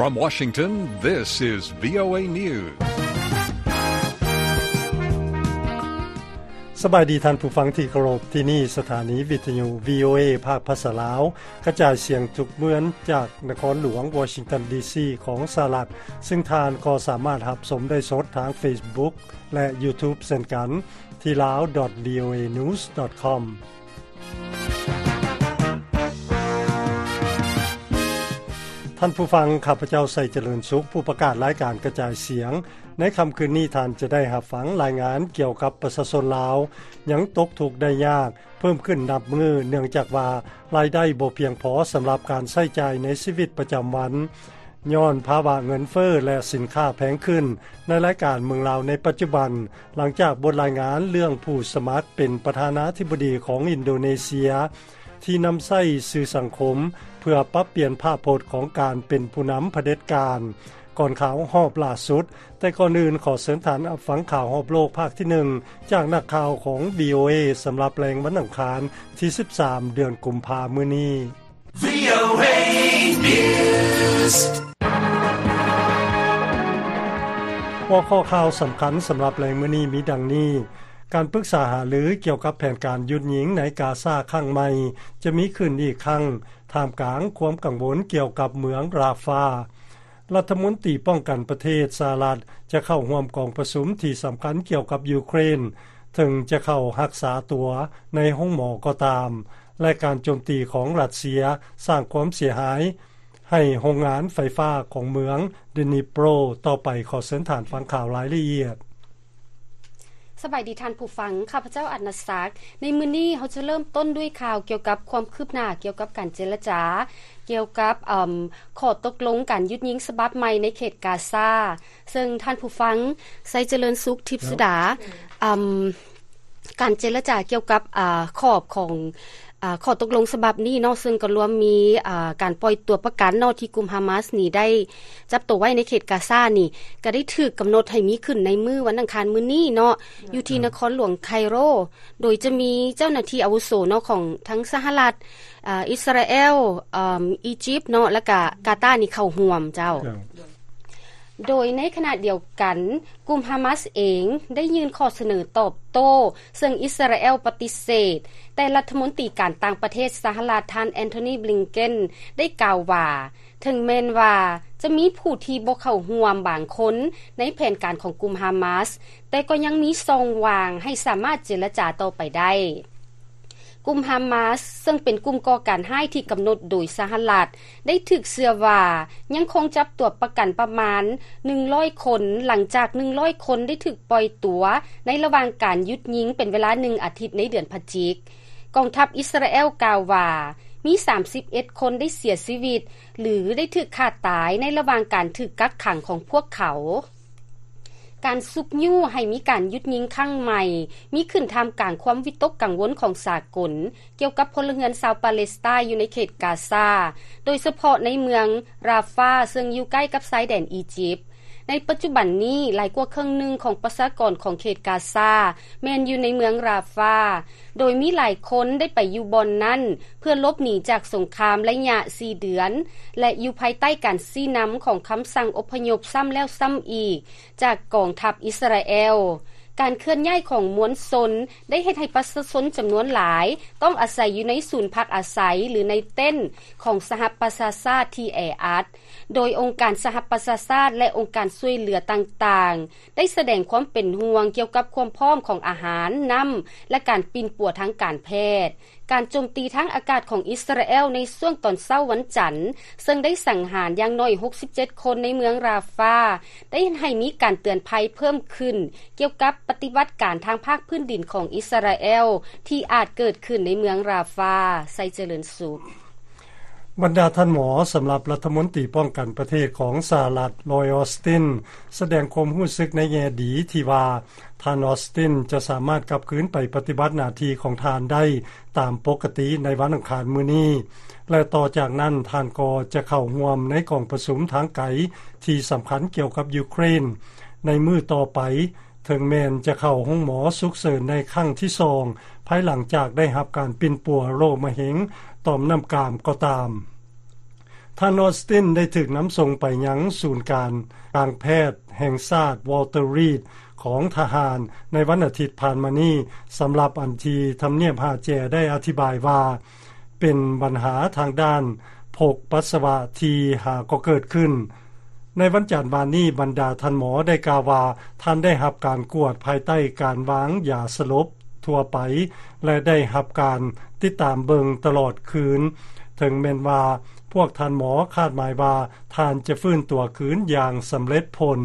From Washington, this is VOA News. ສະບາຍດີທ່ານຜູ້ຟັງທີ່ເຄົາລົບ, ທີ່ນີ້ສະຖານີວິທຍຸ VOA ພາກພາສາລາວ ກະຈາຍສຽງທຸກເມືອງຈາກນະຄອນຫຼວງວໍຊິງຕັນ ດີຊີ ຂອງສະຫະລັດ, ຊຶ່ງທ່ານກໍສາມາດຮັບຊົມໄດ້ສົດທາງ Facebook ແລະ YouTube ເຊັ່ນກັນ ທີ່ lao dot voanews dot com. ທ່ານຜູ້ຟັງ, ຂ້າພະເຈົ້າ ໄຊຈະເລີນສຸກ, ຜູ້ປະກາດລາຍການກະຈາຍສຽງ. ໃນຄ່ຳຄືນນີ້, ທ່ານຈະໄດ້ຮັບຟັງລາຍງານກ່ຽວກັບປະຊາຊົນລາວຍັງຕົກທຸກໄດ້ຍາກເພີ່ມຂຶ້ນນັບມື້, ເນື່ອງຈາກວ່າລາຍໄດ້ບໍ່ພຽງພໍສຳລັບການໃຊ້ຈ່າຍໃນຊີວິດປະຈຳວັນ ຍ້ອນພາວະເງິນເຟີ້ ແລະ ສິນຄ້າແພງຂຶ້ນ. ໃນລາຍການເມືອງລາວໃນປັດຈຸບັນ, ຫຼັງຈາກບົດລາຍງານເລື່ອງຜູ້ສະໝັກເປັນປະທານາທິບໍດີຂອງອິນໂດເນເຊຍ ທີ່ນຳໃຊ້ສື່ສັງຄົມເພື່ອປັບປ່ຽນພາບພົດຂອງການເປັນຜູ້ນຳຜະເດັດການ ກ່ອນຂ່າວຮອບລ່າສຸດ. ແຕ່ກ່ອນອື່ນ, ຂໍເຊີນທ່ານຮັບຟັງຂ່າວຮອບໂລກພາກທີໜຶ່ງ ຈາກນັກຂ່າວຂອງ VOA ສຳລັບແລງວັນອັງຄານທີສິບສາມ ເດືອນກຸມພາ ມື້ນີ້. VOA News. ຫົວຂໍ້ຂ່າວສຳຄັນສຳລັບແລງມື້ນີ້ມີດັ່ງນີ້: ການປຶກສາຫາລືກ່ຽວກັບແຜນການຢຸດຍິງໃນກາຊາຄັ້ງໃໝ່ ຈະມີຂຶ້ນອີກຄັ້ງ ທ່າມກາງຄວາມກັງວົນກ່ຽວກັບເມືອງຣາຟາ. ລັດຖະມົນຕີປ້ອງກັນປະເທດສະຫະລັດ ຈະເຂົ້າຮ່ວມກອງປະຊຸມທີ່ສຳຄັນກ່ຽວກັບຢູເຄຣນ, ເຖິງຈະເຂົ້າຮັກສາຕົວໃນໂຮງໝໍກໍຕາມ ແລະ ການໂຈມຕີຂອງຣັດເຊຍສ້າງຄວາມເສຍຫາຍໃຫ້ໂຮງງານໄຟຟ້າຂອງເມືອງ Dnipro ຕໍ່ໄປ. ຂໍເຊີນທ່ານຟັງຂ່າວລາຍລະອຽດ. ສະບາຍດີທ່ານຜູ້ຟັງ, ຂ້າພະເຈົ້າ ອັນນະສັກ. ໃນມື້ນີ້ເຮົາຈະເລີ່ມຕົ້ນດ້ວຍຂ່າວກ່ຽວກັບຄວາມຄືບໜ້າກ່ຽວກັບການເຈລະຈາ ກ່ຽວກັບ ເອີ່ມ ຂໍ້ຕົກລົງການຢຸດຍິງສະບັບໃໝ່ໃນເຂດກາຊາ, ເຊິ່ງທ່ານຜູ້ຟັງ ໄຊຈະເລີນສຸກ ທິບສຸດາ, ເອີ່ມ ການເຈລະຈາກ່ຽວກັບ ອາ ຂອບຂອງ ອາ ຂໍ້ຕົກລົງສະບັບນີ້ເນາະ, ເຊິ່ງກໍລວມມີ ອາ ການປ່ອຍຕົວປະກັນເນາະ ທີ່ກຸ່ມຮາມາສນີ້ໄດ້ຈັບໂຕໄວ້ໃນເຂດກາຊານີ້ ກໍໄດ້ຖືກກຳນົດໃຫ້ມີຂຶ້ນໃນມື້ວັນອັງຄານມື້ນີ້ເນາະ ຢູ່ທີ່ນະຄອນຫຼວງໄຄໂຣ, ໂດຍຈະມີເຈົ້າໜ້າທີ່ອາວຸໂສເນາະ ຂອງທັງສະຫະລັດ, ອາ ອິດສະຣາແອລ, ອາ ອີຢິບເນາະ ແລ້ວກະກາຕານີ້ເຂົ້າຮ່ວມເຈົ້າ. ໂດຍໃນຂະນະດຽວກັນ, ກຸ່ມຮາມາສເອງໄດ້ຍື່ນຂໍ້ສະເໜີຕອບໂຕ້, ເຊິ່ງອິດສະຣາແອລປະຕິເສດ, ແຕ່ລັດຖະມົນຕີການຕ່າງປະເທດສະຫະລັດ ທ່ານ ແອນໂທນີ ບລິງເກັນ ໄດ້ກ່າວວ່າ ເຖິງແມ່ນວ່າຈະມີຜູ້ທີ່ບໍ່ເຂົ້າຮ່ວມບາງຄົນໃນແຜນການຂອງກຸ່ມຮາມາສ, ແຕ່ກໍຍັງມີຊ່ອງວ່າງໃຫ້ສາມາດເຈລະຈາຕໍ່ໄປໄດ້. ກຸ່ມຮາມາສ ເຊິ່ງເປັນກຸ່ມກໍ່ການຮ້າຍທີ່ກຳນົດໂດຍສະຫະລັດ ໄດ້ຖືກເຊື່ອວ່າຍັງຄົງຈັບຕົວປະກັນປະມານໜຶ່ງຮ້ອຍຄົນ, ຫຼັງຈາກໜຶ່ງຮ້ອຍຄົນໄດ້ຖືກປ່ອຍຕົວໃນລະຫວ່າງການຢຸດຍິງເປັນເວລາໜຶ່ງອາທິດໃນເດືອນພະຈິກ. ກອງທັບອິດສະຣາແອລກ່າວວ່າ ມີສາມສິບເອັດຄົນໄດ້ເສຍຊີວິດ ຫຼື ໄດ້ຖືກຂ້າຕາຍໃນລະຫວ່າງການຖືກກັກຂັງຂອງພວກເຂົາ. ການຊຸກຍູ້ໃຫ້ມີການຢຸດຍິງຄັ້ງໃໝ່ ມີຂຶ້ນທ່າມກາງຄວາມວິຕົກກັງວົນຂອງສາກົນ ກ່ຽວກັບພົນລະເຮືອນຊາວປາເລສໄຕນ໌ຢູ່ໃນເຂດກາຊາ, ໂດຍສະເພາະໃນເມືອງຣາຟາ ເຊິ່ງຢູ່ໃກ້ກັບຊາຍແດນອີຢິບ. ໃນປັດຈຸບັນນີ້, ຫຼາຍກວ່າເຄິ່ງໜຶ່ງຂອງປະຊາກອນຂອງເຂດກາຊາ ແມ່ນຢູ່ໃນເມືອງຣາຟາ, ໂດຍມີຫຼາຍຄົນໄດ້ໄປຢູ່ບ່ອນນັ້ນ ເພື່ອຫຼົບໜີຈາກສົງຄາມໄລຍະສີ່ເດືອນ ແລະ ຢູ່ພາຍໃຕ້ການຊີ້ນຳຂອງຄຳສັ່ງອົບພະຍົບຊ້ຳແລ້ວຊ້ຳອີກຈາກກອງທັບອິດສະຣາແອລ. ການເຄື່ອນຍ້າຍຂອງມວນຊົນໄດ້ເຮັດໃຫ້ປະຊາຊົນຈຳນວນຫຼາຍຕ້ອງອາໄສຢູ່ໃນສູນພັກອາໄສ ຫຼື ໃນເຕັນຂອງສະຫະປະຊາຊາດທີ່ແອອັດ, ໂດຍອົງການສະຫະປະຊາຊາດ ແລະ ອົງການຊ່ວຍເຫຼືອຕ່າງໆ ໄດ້ສະແດງຄວາມເປັນຫ່ວງກ່ຽວກັບຄວາມພ້ອມຂອງອາຫານ, ນ້ຳ ແລະ ການປິ່ນປົວທາງການແພດ. ການໂຈມຕີທາງອາກາດຂອງອິດສະຣາແອລໃນຊ່ວງຕອນເຊົ້າວັນຈັນ, ເຊິ່ງໄດ້ສັງຫານຢ່າງໜ້ອຍຫົກສິບເຈັດຄົນໃນເມືອງຣາຟາ, ໄດ້ເຮັດໃຫ້ມີການເຕືອນໄພເພີ່ມຂຶ້ນກ່ຽວກັບປະຕິບັດການທາງພາກພື້ນດິນຂອງອິດສະຣາແອລທີ່ອາດເກີດຂຶ້ນໃນເມືອງຣາຟາ. ໄຊຈະເລີນສຸກ. ບັນດາທ່ານໝໍສຳລັບລັດຖະມົນຕີປ້ອງກັນປະເທດຂອງສະຫະລັດ ລອຍ ອອສຕິນ ສະແດງຄວາມຮູ້ສຶກໃນແງ່ດີທີ່ວ່າ ທ່ານ ອອສຕິນ ຈະສາມາດກັບຄືນໄປປະຕິບັດໜ້າທີ່ຂອງທ່ານໄດ້ຕາມປົກກະຕິໃນວັນອັງຄານມື້ນີ້ ແລະ ຕໍ່ຈາກນັ້ນທ່ານກໍຈະເຂົ້າຮ່ວມໃນກອງປະຊຸມທາງໄກທີ່ສຳຄັນກ່ຽວກັບຢູເຄຣນໃນມື້ຕໍ່ໄປ. ເຖິງແມ່ນຈະເຂົ້າໂຮງໝໍສຸກເສີນໃນຄັ້ງທີສອງ ພາຍຫຼັງຈາກໄດ້ຮັບການປິ່ນປົວໂລກມະເຮັງຕ່ອມນ້ຳກາມກໍຕາມ. ທ່ານ Austin ໄດ້ຖືກນຳສົ່ງໄປຍັງສູນການກາງແພດແຫ່ງຊາດ Walter Reed ຂອງທະຫານໃນວັນອາທິດຜ່ານມານີ້. ສຳລັບອັນທີ່ທຳນຽບຫາແຈໄດ້ອະທິບາຍວ່າ ເປັນບັນຫາທາງດ້ານພົກປັດສະວະທີ່ຫາກໍເກີດຂຶ້ນ. ໃນວັນຈັນວານນີ້, ບັນດາທ່ານໝໍໄດ້ກ່າວວ່າ ທ່ານໄດ້ຮັບການກວດພາຍໃຕ້ການວາງຢາສະຫຼົບທົ່ວໄປ ແລະ ໄດ້ຮັບການຕິດຕາມເບິ່ງຕະຫຼອດຄືນ, ເຖິງແມ່ນວ່າພວກທ່ານໝໍຄາດໝາຍວ່າ ທ່ານຈະຟື້ນຕົວຄືນຢ່າງສຳເລັດຜົນ.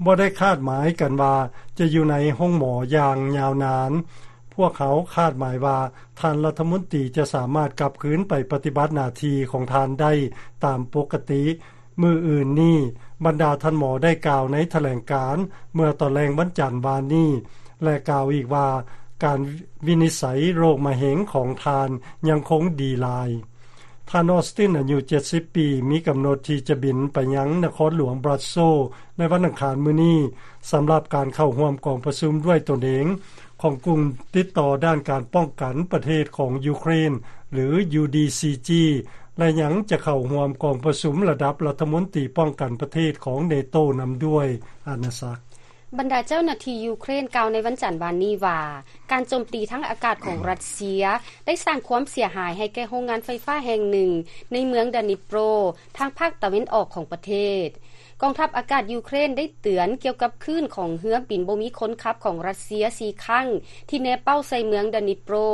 ບໍ່ໄດ້ຄາດໝາຍກັນວ່າຈະຢູ່ໃນໂຮງໝໍຢ່າງຍາວນານ. ພວກເຮົາຄາດໝາຍວ່າທ່ານລັດຖະມົນຕີຈະສາມາດກັບຄືນໄປປະຕິບັດໜ້າທີ່ຂອງທ່ານໄດ້ຕາມປົກກະຕິ. ມື້ອື່ນນີ້, ບັນດາທ່ານໝໍໄດ້ກ່າວໃນຖະແຫຼງການເມື່ອຕອນແລງວັນຈັນວານນີ້ ແລະ ກ່າວອີກວ່າ ການວິນິດໄສໂລກມະເຮັງຂອງທ່ານຍັງຄົງດີຫຼາຍ. ທ່ານ Austin ອາຍຸເຈັດສິບປີ ມີກຳນົດທີ່ຈະບິນໄປຍັງນະຄອນຫຼວງ Brussels ໃນວັນອັງຄານມື້ນີ້ ສຳລັບການເຂົ້າຮ່ວມກອງປະຊຸມດ້ວຍຕົນເອງຂອງກຸ່ມຕິດຕໍ່ດ້ານການປ້ອງກັນປະເທດຂອງຢູເຄຣນ ຫຼື UDCG ແລະ ຍັງຈະເຂົ້າຮ່ວມກອງປະຊຸມລະດັບລັດຖະມົນຕີປ້ອງກັນປະເທດຂອງ NATO ນຳດ້ວຍ. ອານາສັກ. ບັນດາເຈົ້າໜ້າທີ່ຢູເຄຣນກ່າວໃນວັນຈັນວານນີ້ວ່າ ການໂຈມຕີທາງອາກາດຂອງຣັດເຊຍໄດ້ສ້າງຄວາມເສຍຫາຍໃຫ້ແກ່ໂຮງງານໄຟຟ້າແຫ່ງໜຶ່ງໃນເມືອງ Dnipro ທາງພາກຕາເວັນອອກຂອງປະເທດ. ກອງທັບອາກາດຢູເຄຣນໄດ້ເຕືອນກ່ຽວກັບຄື້ນຂອງເຮືອບິນບໍ່ມີຄົນຂັບຂອງຣັດເຊຍສີ່ຄັ້ງ ທີ່ແນເປົ້າໃສ່ເມືອງ Dnipro.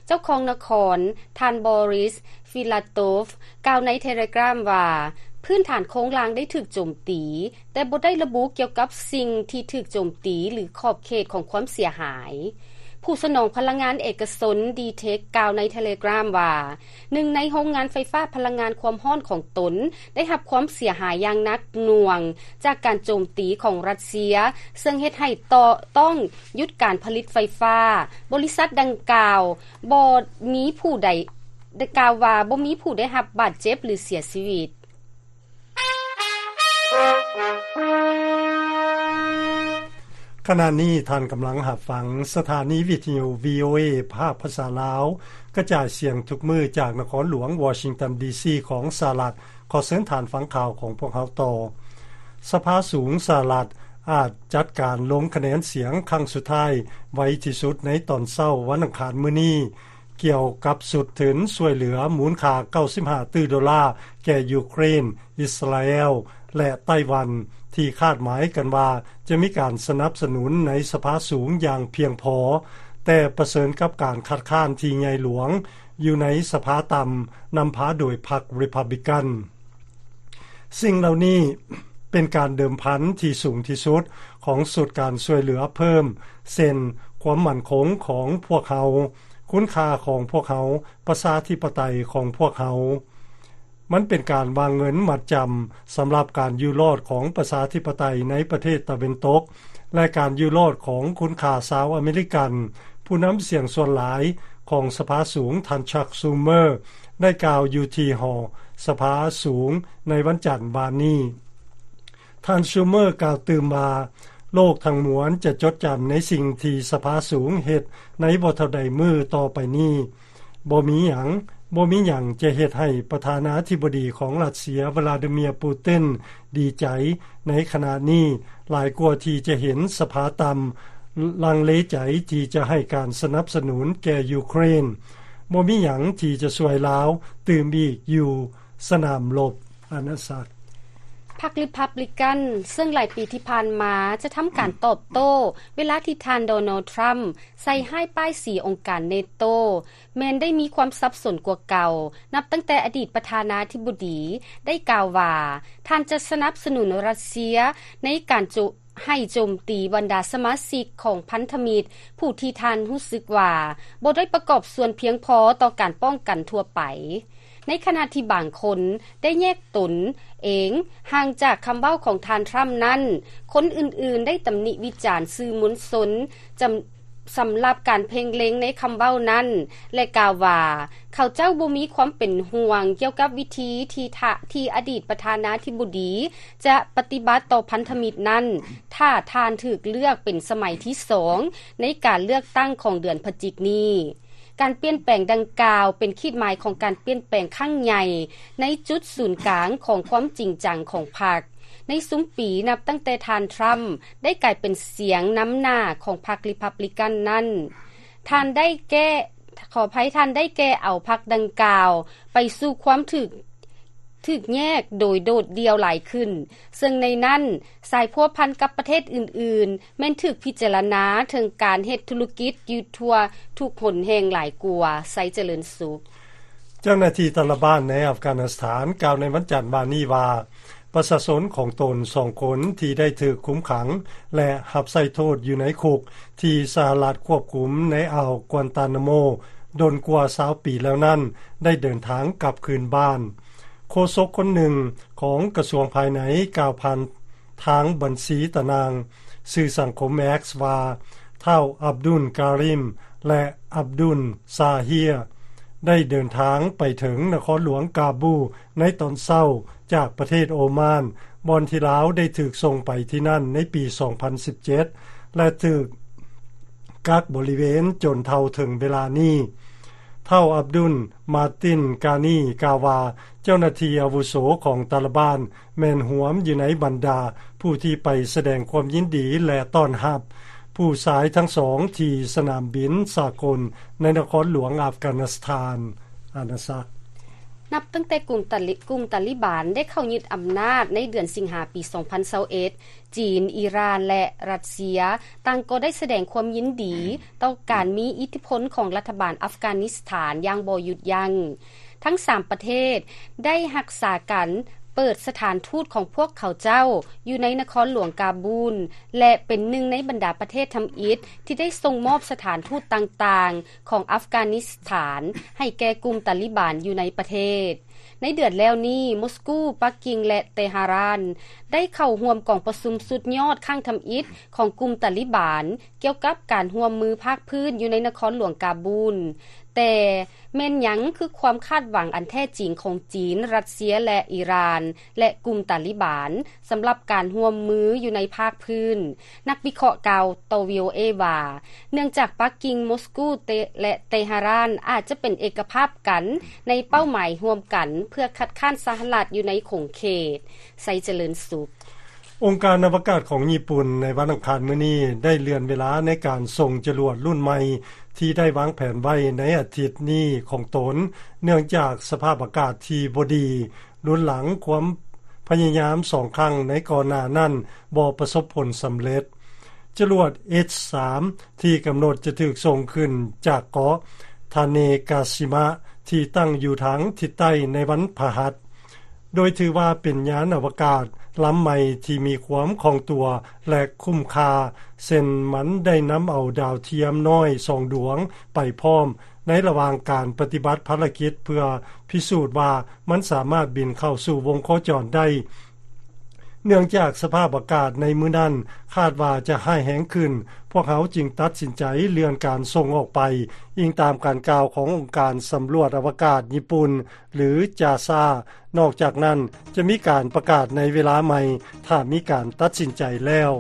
ເຈົ້າຄອງນະຄອນ ທ່ານ Boris Filatov ກ່າວໃນ Telegram ວ່າ ພື້ນຖານໂຄງລ່າງໄດ້ຖືກໂຈມຕີ, ແຕ່ບໍ່ໄດ້ລະບຸກ່ຽວກັບສິ່ງທີ່ຖືກໂຈມຕີ ຫຼື ຂອບເຂດຂອງຄວາມເສຍຫາຍ. ຜູ້ສະໜອງພະລັງງານເອກະຊົນ DTEK ກ່າວໃນ Telegram ວ່າ ໜຶ່ງໃນໂຮງງານໄຟຟ້າພະລັງງານຄວາມຮ້ອນຂອງຕົນໄດ້ຮັບຄວາມເສຍຫາຍຢ່າງໜັກໜ່ວງຈາກການໂຈມຕີຂອງຣັດເຊຍ, ເຊິ່ງເຮັດໃຫ້ຕ້ອງຢຸດການຜະລິດໄຟຟ້າ. ບໍລິສັດດັ່ງກ່າວບໍ່ມີຜູ້ໃດ ໄດ້ກ່າວວ່າບໍ່ມີຜູ້ໄດ້ຮັບບາດເຈັບ ຫຼື ເສຍຊີວິດ. ຂະນະນີ້ທ່ານກຳລັງຮັບຟັງສະຖານີວິທະຍຸ VOA ພາກພາສາລາວ ກະຈາຍສຽງທຸກມື້ຈາກນະຄອນຫຼວງວໍຊິງຕັນ ດີຊີ ຂອງສະຫະລັດ. ຂໍເຊີນທ່ານຟັງຂ່າວຂອງພວກເຮົາຕໍ່. ສະພາສູງສະຫະລັດອາດຈັດການລົງຄະແນນສຽງຄັ້ງສຸດທ້າຍໄວທີ່ສຸດໃນຕອນເຊົ້າວັນອັງຄານມື້ນີ້. ກ່ຽວກັບຊຸດທຶນຊ່ວຍເຫຼືອມູນຄ່າເກົ້າສິບຫ້າຕື້ໂດລາແກ່ຢູເຄຣນ, ອິດສະຣາແອລ ແລະ ໄຕ້ຫວັນ ທີ່ຄາດໝາຍກັນວ່າຈະມີການສະໜັບສະໜູນໃນສະພາສູງຢ່າງພຽງພໍ, ແຕ່ປະເຊີນກັບການຄັດຄ້ານທີ່ໃຫຍ່ຫຼວງຢູ່ໃນສະພາຕ່ຳ ນຳພາໂດຍພັກ Republican. ສິ່ງເຫຼົ່ານີ້ເປັນການເດີມພັນທີ່ສູງທີ່ສຸດຂອງຊຸດການຊ່ວຍເຫຼືອເພີ່ມ, ເຊັ່ນ ຄວາມໝັ້ນຄົງຂອງພວກເຮົາ, ຄຸນຄ່າຂອງພວກເຮົາ, ປະຊາທິປະໄຕຂອງພວກເຮົາ. ມັນເປັນການວາງເງິນມັດຈຳສຳລັບການຢູ່ລອດຂອງປະຊາທິປະໄຕໃນປະເທດຕາເວັນຕົກ ແລະ ການຢູ່ລອດຂອງຄຸນຄ່າຊາວອາເມລິກັນ. ຜູ້ນຳສຽງສ່ວນຫຼາຍຂອງສະພາສູງ ທ່ານ Chuck Schumer ໄດ້ກ່າວຢູ່ທີ່ຫໍສະພາສູງໃນວັນຈັນວານນີ້. ທ່ານ Schumer ກ່າວຕື່ມວ່າ ໂລກທັງມວນຈະຈົດຈຳໃນສິ່ງທີ່ສະພາສູງເຮັດໃນບໍ່ເທົ່າໃດມື້ຕໍ່ໄປນີ້. ບໍ່ມີຫຍັງ, ບໍ່ມີຫຍັງຈະເຮັດໃຫ້ປະທານາທິບໍດີຂອງຣັດເຊຍ ວລາດີເມຍ ປູຕິນ ດີໃຈໃນຂະນະນີ້ ຫຼາຍກວ່າທີ່ຈະເຫັນສະພາຕ່ຳລັງເລໃຈທີ່ຈະໃຫ້ການສະໜັບສະໜູນແກ່ຢູເຄຣນ. ບໍ່ມີຫຍັງທີ່ຈະຊ່ວຍລາວຕື່ມອີກຢູ່ສະໜາມລົບ. ອານາສັກ. ພັກ Republican ເຊິ່ງຫຼາຍປີທີ່ຜ່ານມາຈະທຳການຕອບໂຕ້ເວລາທີ່ທ່ານ Donald Trump ໃສ່ຮ້າຍປ້າຍສີອົງການ NATO ແມ່ນໄດ້ມີຄວາມສັບສົນກວ່າເກົ່າ, ນັບຕັ້ງແຕ່ອະດີດປະທານາທິບໍດີໄດ້ກ່າວວ່າ ທ່ານຈະສະໜັບສະໜູນຣັດເຊຍໃນການໂຈ ໃຫ້ໂຈມຕີບັນດາສະມາຊິກຂອງພັນທະມິດ ຜູ້ທີ່ທ່ານຮູ້ສຶກວ່າບໍ່ໄດ້ປະກອບສ່ວນພຽງພໍຕໍ່ການປ້ອງກັນທົ່ວໄປ, ໃນຂະນະທີ່ບາງຄົນໄດ້ແຍກຕົນເອງຫ່າງຈາກຄຳເວົ້າຂອງທ່ານທຣຳນັ້ນ, ຄົນອື່ນໆໄດ້ຕຳໜິວິຈານສື່ມວນຊົນຈຳ ສຳລັບການເພັ່ງເລັງໃນຄຳເວົ້ານັ້ນ ແລະ ກ່າວວ່າ ເຂົາເຈົ້າບໍ່ມີຄວາມເປັນຫ່ວງກ່ຽວກັບວິທີທີ່ທະ ທີ່ອະດີດປະທານາທິບໍດີຈະປະຕິບັດຕໍ່ພັນທະມິດນັ້ນ ຖ້າທ່ານຖືກເລືອກເປັນສະໄໝທີສອງໃນການເລືອກຕັ້ງຂອງເດືອນພະຈິກນີ້. ການປ່ຽນແປງດັ່ງກ່າວເປັນຂີດໝາຍຂອງການປ່ຽນແປງຄັ້ງໃຫຍ່ໃນຈຸດສູນກາງຂອງຄວາມຈິງຈັງຂອງພັກ. ໃນຊຸມປີນັບຕັ້ງແຕ່ທ່ານທຣຳໄດ້ກາຍເປັນສຽງນຳໜ້າຂອງພັກຣີພັບລິກັນນັ້ນ, ທ່ານໄດ້ແກ້ ຂໍອະໄພ, ທ່ານໄດ້ແກ່ເອົາພັກດັ່ງກ່າວໄປສູ່ຄວາມຖືກ ຖືກແຍກໂດຍໂດດດ່ຽວຫຼາຍຂຶ້ນ, ເຊິ່ງໃນນັ້ນສາຍພົວພັນກັບປະເທດອື່ນໆ ແມ່ນຖືກພິຈາລະນາເຖິງການເຮັດທຸລະກິດຢູ່ທົ່ວທຸກຫົນແຫ່ງຫຼາຍກວ່າ. ໄຊຈະເລີນສຸກ. ເຈົ້າໜ້າທີ່ຕາລະບານໃນອັຟການິສຖານກ່າວໃນວັນຈັນວານນີ້ວ່າ ປະຊາຊົນຂອງຕົນສອງຄົນທີ່ໄດ້ຖືກຄຸມຂັງ ແລະ ຮັບໃຊ້ໂທດຢູ່ໃນຄຸກທີ່ສະຫະລັດຄວບຄຸມໃນອ່າວກວນຕານາໂມດົນກວ່າຊາວປີແລ້ວນັ້ນ ໄດ້ເດີນທາງກັບຄືນບ້ານ. ໂຄສົກຄົນໜຶ່ງຂອງກະຊວງພາຍໃນກ່າວຜ່ານທາງບັນຊີຕານາງສື່ສັງຄົມ X ວ່າ ທ້າວອັບດຸນກາຣິມ ແລະ ອັບດຸນຊາເຮຍ ໄດ້ເດີນທາງໄປເຖິງນະຄອນຫຼວງກາບູໃນຕອນເຊົ້າຈາກປະເທດໂອມານ, ບ່ອນທີ່ລາວໄດ້ຖືກສົ່ງໄປທີ່ນັ້ນໃນປີສອງພັນສິບເຈັດ ແລະ ຖືກກັກບໍລິເວນຈົນເທົ່າເຖິງເວລານີ້. ທ້າວອັບດຸນ ມາຕິນ ການີ ກ່າວວ່າ ເຈົ້າໜ້າທີ່ອາວຸໂສຂອງຕາລະບານແມ່ນຮວມຢູ່ໃນບັນດາຜູ້ທີ່ໄປສະແດງຄວາມຍິນດີ ແລະ ຕ້ອນຮັບຜູ້ຊາຍທັງສອງທີ່ສະໜາມບິນສາກົນໃນນະຄອນຫຼວງອັຟການິສຖານ. ອານາສັກ. ນັບຕັ້ງແຕ່ກຸ່ມຕາລິ ກຸ່ມຕາລິບານໄດ້ເຂົ້າຍຶດອຳນາດໃນເດືອນສິງຫາປີສອງພັນຊາວເອັດ, ຈີນ, ອີຣານ ແລະ ຣັດເຊຍ ຕ່າງກໍໄດ້ສະແດງຄວາມຍິນດີຕໍ່ການມີອິດທິພົນຂອງລັດຖະບານອັຟການິສຖານຢ່າງບໍ່ຢຸດຢັ້ງ. ທັງສາມປະເທດໄດ້ຮັກສາກັນເປີດສະຖານທູດຂອງພວກເຂົາເຈົ້າຢູ່ໃນນະຄອນຫຼວງກາບູນ ແລະ ເປັນໜຶ່ງໃນບັນດາປະເທດທຳອິດທີ່ໄດ້ສົ່ງມອບສະຖານທູດຕ່າງໆຂອງອັຟການິສຖານໃຫ້ແກ່ກຸ່ມຕາລິບານຢູ່ໃນປະເທດ. ໃນເດືອນແລ້ວນີ້, ມົສກູ, ປັກກິ່ງ ແລະ ເຕຫະຣານ ໄດ້ເຂົ້າຮ່ວມກອງປະຊຸມສຸດຍອດຄັ້ງທຳອິດຂອງກຸ່ມຕາລິບານ ກ່ຽວກັບການຮ່ວມມືພາກພື້ນຢູ່ໃນນະຄອນຫຼວງກາບູນ. ແຕ່ແມ່ນຫຍັງຄືຄວາມຄາດຫວັງອັນແທ້ຈິງຂອງຈີນ, ຣັດເຊຍ ແລະ ອີຣານ ແລະ ກຸ່ມຕາລິບານ ສຳລັບການຮ່ວມມືຢູ່ໃນພາກພື້ນ? ນັກວິເຄາະກ່າວຕໍ່ ວີໂອເອ ວ່າ ເນື່ອງຈາກປັກກິ່ງ, ມົສກູ ແລະ ເຕຫະຣານ ອາດຈະເປັນເອກະພາບກັນໃນເປົ້າໝາຍຮ່ວມກັນເພື່ອຄັດຄ້ານສະຫະລັດຢູ່ໃນຂົງເຂດ. ໄຊຈະເລີນສຸກ. ອົງການອະວະກາດຂອງຍີ່ປຸ່ນໃນວັນອັງຄານມື້ນີ້ໄດ້ເລື່ອນເວລາໃນການສົ່ງຈະຫຼວດລຸ້ນໃໝ່ທີ່ໄດ້ວາງແຜນໄວ້ໃນອາທິດນີ້ຂອງຕົນ, ເນື່ອງຈາກສະພາບອາກາດທີ່ບໍ່ດີ ລຸນຫຼັງຄວາມພະຍາຍາມສອງຄັ້ງໃນກ່ອນໜ້ານັ້ນບໍ່ປະສົບຜົນສຳເລັດ. ຈະຫຼວດ H ສາມ ທີ່ກຳນົດຈະຖືກສົ່ງຂຶ້ນຈາກເກາະທາເນກາຊິມະ ທີ່ຕັ້ງຢູ່ທາງທິດໃຕ້ໃນວັນພະຫັດ, ໂດຍຖືວ່າເປັນຍານອະວະກາດລຳໃໝ່ທີ່ມີຄວາມຄ່ອງຕົວ ແລະ ຄຸ້ມຄ່າ, ເຊັ່ນ ມັນໄດ້ນຳເອົາດາວທຽມນ້ອຍສອງດວງໄປພ້ອມ ໃນລະຫວ່າງການປະຕິບັດພາລະກິດ ເພື່ອພິສູດວ່າມັນສາມາດບິນເຂົ້າສູ່ວົງໂຄຈອນໄດ້. ເນື່ອງຈາກສະພາບອາກາດໃນມື້ນັ້ນຄາດວ່າຈະຮ້າຍແຮງຂຶ້ນ, ພວກເຮົາຈຶ່ງຕັດສິນໃຈເລື່ອນການສົ່ງອອກໄປ, ອີງຕາມການກ່າວຂອງອົງການສຳຫຼວດອະວະກາດຍີ່ປຸ່ນ ຫຼື ຈາຊາ. ນອກຈາກນັ້ນ, ຈະມີການປະກາດໃນເວລາໃໝ່ ຖ້າມີການຕັດສິນໃຈແລ້ວ.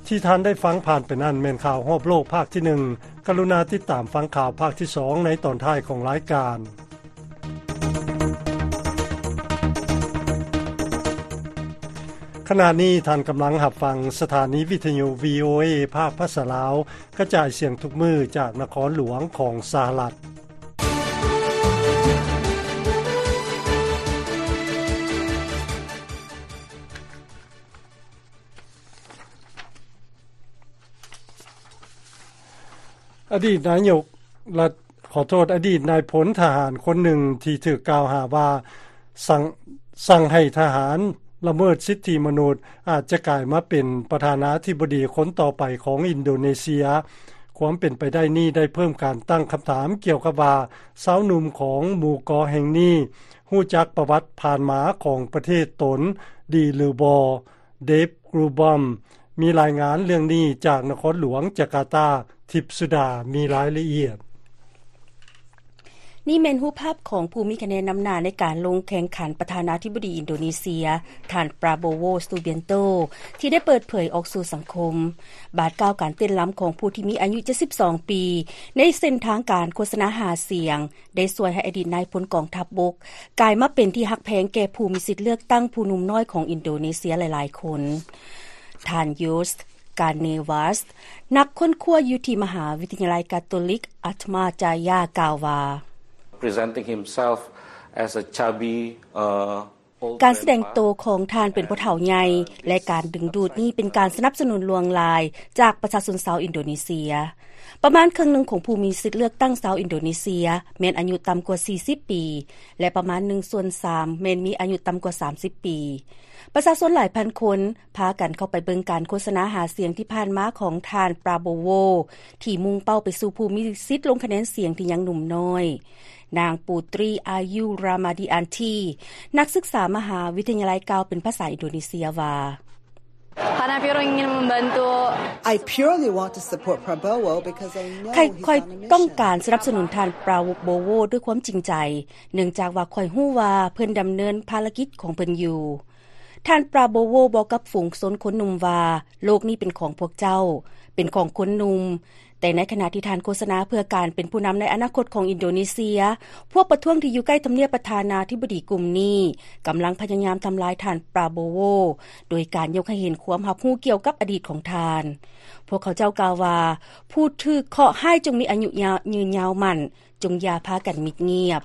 ທີ່ທ່ານໄດ້ຟັງຜ່ານໄປນັ້ນແມ່ນຂ່າວຮອບໂລກພາກທີໜຶ່ງ. ກະລຸນາຕິດຕາມຟັງຂ່າວພາກທີສອງໃນຕອນທ້າຍຂອງລາຍການ. ຂະນະນີ້ທ່ານກຳລັງຮັບຟັງສະຖານີວິທະຍຸ ວີໂອເອ ພາກພາສາລາວ ກະຈາຍສຽງທຸກມື້ຈາກນະຄອນຫຼວງຂອງສະຫະລັດ. ອະດີດນາຍົກລັດ ຂໍໂທດ, ອະດີດນາຍພົນທະຫານຄົນໜຶ່ງທີ່ຖືກກ່າວຫາວ່າສັ່ງ, ສັ່ງໃຫ້ທະຫານລະເມີດສິດທິມະນຸດ ອາດຈະກາຍມາເປັນປະທານາທິບໍດີຄົນຕໍ່ໄປຂອງອິນໂດເນເຊຍ. ຄວາມເປັນໄປໄດ້ນີ້ໄດ້ເພີ່ມການຕັ້ງຄຳຖາມກ່ຽວກັບວ່າ ຊາວໜຸ່ມຂອງໝູ່ເກາະແຫ່ງນີ້ຮູ້ຈັກປະຫວັດຜ່ານມາຂອງປະເທດຕົນດີຫຼືບໍ່? ເດບ ກຣູບອມ ມີລາຍງານເລື່ອງນີ້ຈາກນະຄອນຫຼວງຈາກາຕາ. ທິບສຸດາ ມີລາຍລະອຽດ. ນີ້ແມ່ນຮູບພາບຂອງຜູ້ມີຄະແນນນຳໜ້າໃນການລົງແຂ່ງຂັນປະທານາທິບໍດີອິນໂດເນເຊຍ, ທ່ານ ປຣາໂບໂວ ຊູບຽນໂຕ ທີ່ໄດ້ເປີດເຜີຍອອກສູ່ສັງຄົມ, ບາດກ້າວການເຕັ້ນລຳຂອງຜູ້ທີ່ມີອາຍຸເຈັດສິບສອງປີ ໃນເສັ້ນທາງການໂຄສະນາຫາສຽງ ໄດ້ຊ່ວຍໃຫ້ອະດີດນາຍພົນກອງທັບບົກ ກາຍມາເປັນທີ່ຮັກແພງແກ່ຜູ້ມີສິດເລືອກຕັ້ງຜູ້ໜຸ່ມນ້ອຍຂອງອິນໂດເນເຊຍຫຼາຍໆຄົນ. ທ່ານ ໂຍສ ກາເນວັສ ນັກຄົ້ນຄວ້າຢູ່ທີ່ມະຫາວິທະຍາໄລກາໂຕລິກ ອາທມາຈາຢາ ກ່າວວ່າ presenting himself as a chubby, uh, old grandpa. ການສະແດງໂຕຂອງທ່ານເປັນຜູ້ເຖົ້າໃຫຍ່ ແລະ ການດຶງດູດນີ້ເປັນການສະໜັບສະໜູນຫຼວງຫຼາຍຈາກປະຊາຊົນຊາວອິນໂດເນເຊຍ. ປະມານເຄິ່ງໜຶ່ງຂອງຜູ້ມີສິດເລືອກຕັ້ງຊາວອິນໂດເນເຊຍແມ່ນອາຍຸຕ່ຳກວ່າສີ່ສິບປີ ແລະ ປະມານໜຶ່ງສ່ວນສາມແມ່ນມີອາຍຸຕ່ຳກວ່າສາມສິບປີ. ປະຊາຊົນຫຼາຍພັນຄົນ ພາກັນເຂົ້າໄປເບິ່ງການໂຄສະນາຫາສຽງທີ່ຜ່ານມາຂອງທ່ານ ປຣາໂບໂວ ທີ່ມຸ່ງເປົ້າໄປສູ່ຜູ້ມີສິດລົງຄະແນນສຽງທີ່ຍັງໜຸ່ມນ້ອຍ. ນາງ ປູຕຣີ ອາຍຸຣາມາດີອານທີ ນັກສຶກສາມະຫາວິທະຍາໄລ ກ່າວເປັນພາສາອິນໂດເນເຊຍວ່າ Karena Piro ingin membantu. I purely want to support Prabowo because I know he's on a mission. ຂ້ອຍຕ້ອງການສະໜັບສະໜູນທ່ານ ປຣາໂບໂວ ດ້ວຍຄວາມຈິງໃຈ ເນື່ອງຈາກວ່າຂ້ອຍຮູ້ວ່າເພິ່ນດຳເນີນພາລະກິດຂອງເພິ່ນຢູ່. ທ່ານ ປຣາໂບໂວ ບອກກັບຝູງຊົນຄົນໜຸ່ມວ່າ ໂລກນີ້ເປັນຂອງພວກເຈົ້າ, ເປັນຂອງຄົນໜຸ່ມ. ແຕ່ໃນຂະນະທີ່ທ່ານໂຄສະນາເພື່ອການເປັນຜູ້ນຳໃນອະນາຄົດຂອງອິນໂດເນເຊຍ, ພວກປະທ້ວງທີ່ຢູ່ໃກ້ທຳນຽບປະທານາທິບໍດີກຸ່ມນີ້ ກຳລັງພະຍາຍາມທຳລາຍທ່ານ ປຣາໂບໂວ ໂດຍການຍົກໃຫ້ເຫັນຄວາມຮັບຮູ້ກ່ຽວກັບອະດີດຂອງທ່ານ. ພວກເຂົາເຈົ້າກ່າວວ່າ ຜູ້ຖືກເຄາະຮ້າຍຈົ່ງມີອາຍຸຍາວ ຍືນຍາວໝັ້ນ, ຈົ່ງຢ່າພາກັນມິດງຽບ.